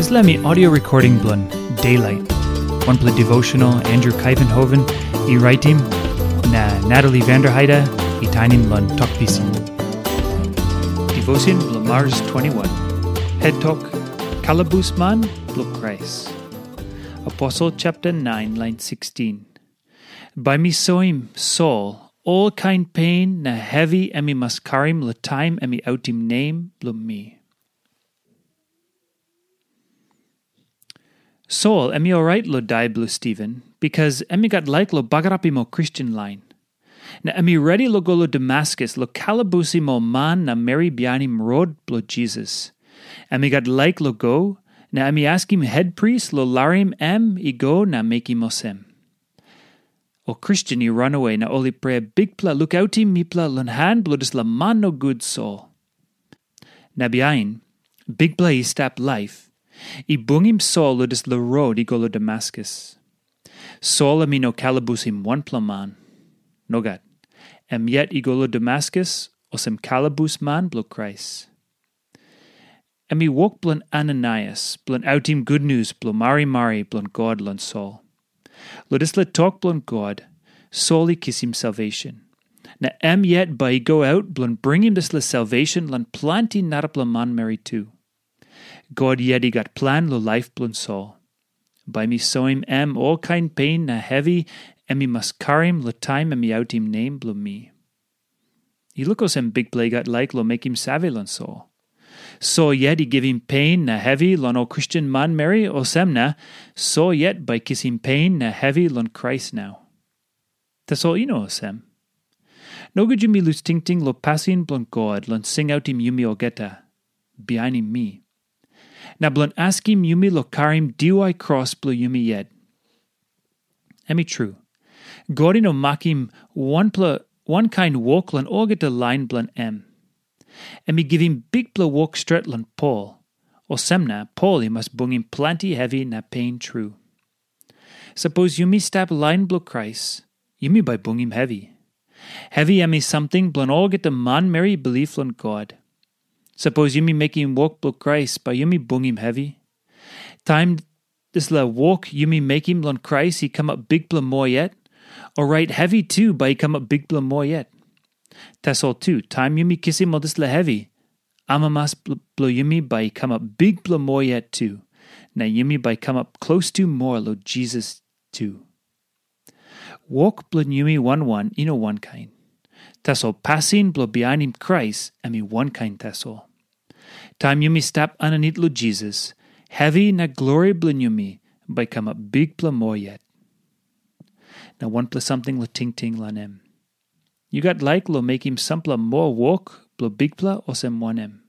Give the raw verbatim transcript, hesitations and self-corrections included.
Dispela mi audio recording bilong Daylight, wanpela devotional Andrew Kaivenhoven i raitim, na Natalie Vanderheide i tainim long Tok Pisin. Devotion bilong Mars twenty-one. Head Tok, Kalabus Man bilong Krais. Aposel chapter nine, lain sixteen. Bai mi soim Sol ol kain pen na hevi em i mas karim long taim em i autim nem bilong mi. Sol em i orait long dai bilong Stiven, bikas em i gat laik long bagarapim ol Kristen lain. Na em i redi long go long Damaskus long kalabusim ol man na meri bihainim rot bilong Jisas. Em i gat laik long go, na em i askim hetpris long larim em i go na mekim olsem. Ol Kristen i ranawe na ol i prea, "Bikpela, lukautim mipela long han bilong dispela man nogut Sol." Na bihain, Bikpela i stap laip, i bungim Sol long dispela rot i go long Damaskus. Sol em i no kalabusim wanpela man. Nogat. Em yet i go long Damaskus olsem kalabus man bilong Krais. Em i wok bilong Ananaias bilong autim gutnius bilong marimari bilong God long Sol. Long dispela tok bilong God, Sol i kisim salvation. Na em yet bai i go aut bilong bringim dispela salvation long planti narapela manmeri tu. God yet i gat plan long laip bilong Sol. Bai mi soim em olkain pen na hevi em i mas karim long taim em i autim nem bilong mi. I luk olsem Bikpela i gat laik long mekim save long Sol. Sol yet i givim pen na hevi long ol Kristen manmeri, olsem na Sol yet bai kisim pen na hevi long Krais nau. Tasol i no olsem. Nogut yumi lus tingting long pasin bilong God long singautim yumi olgeta, bihainim mi, na bilong askim yumi long karim diwai kros bilong yumi yet. Em i tru, God i no makim wanpela wankain wok long olgeta lain bilong em. Em i givim bikpela wok stret long Pol, olsem na Pol i mas bungim planti hevi na pen tru. Sapos yumi stap lain bilong Krais, yumi bai bungim hevi. Hevi em i samting bilong olgeta manmeri i bilip long God. Sapos yumi mekim wok bilong Krais, bai yumi bungim hevi. Taim dispela wok yumi mekim long Krais i kamap bikpela moa yet, orait hevi tu bai i kamap bikpela moa yet. Tasol tu, taim yumi kisim ol dispela hevi, amamas bl- bilong yumi bai i kamap bikpela moa yet tu, na yumi bai i kamap klostu moa long Jisas tu. Wok bilong yumi wan wan i no wankain. Tasol pasin bilong bihainim Krais em i wankain tasol. Taim yumi stap aninit long Jisas, hevi na glori bilong yumi bai i kamap bikpela moa yet. Na wanpela samting long tingting long em. Yu gat laik long mekim sampela moa wok bilong Bikpela olsem wanem?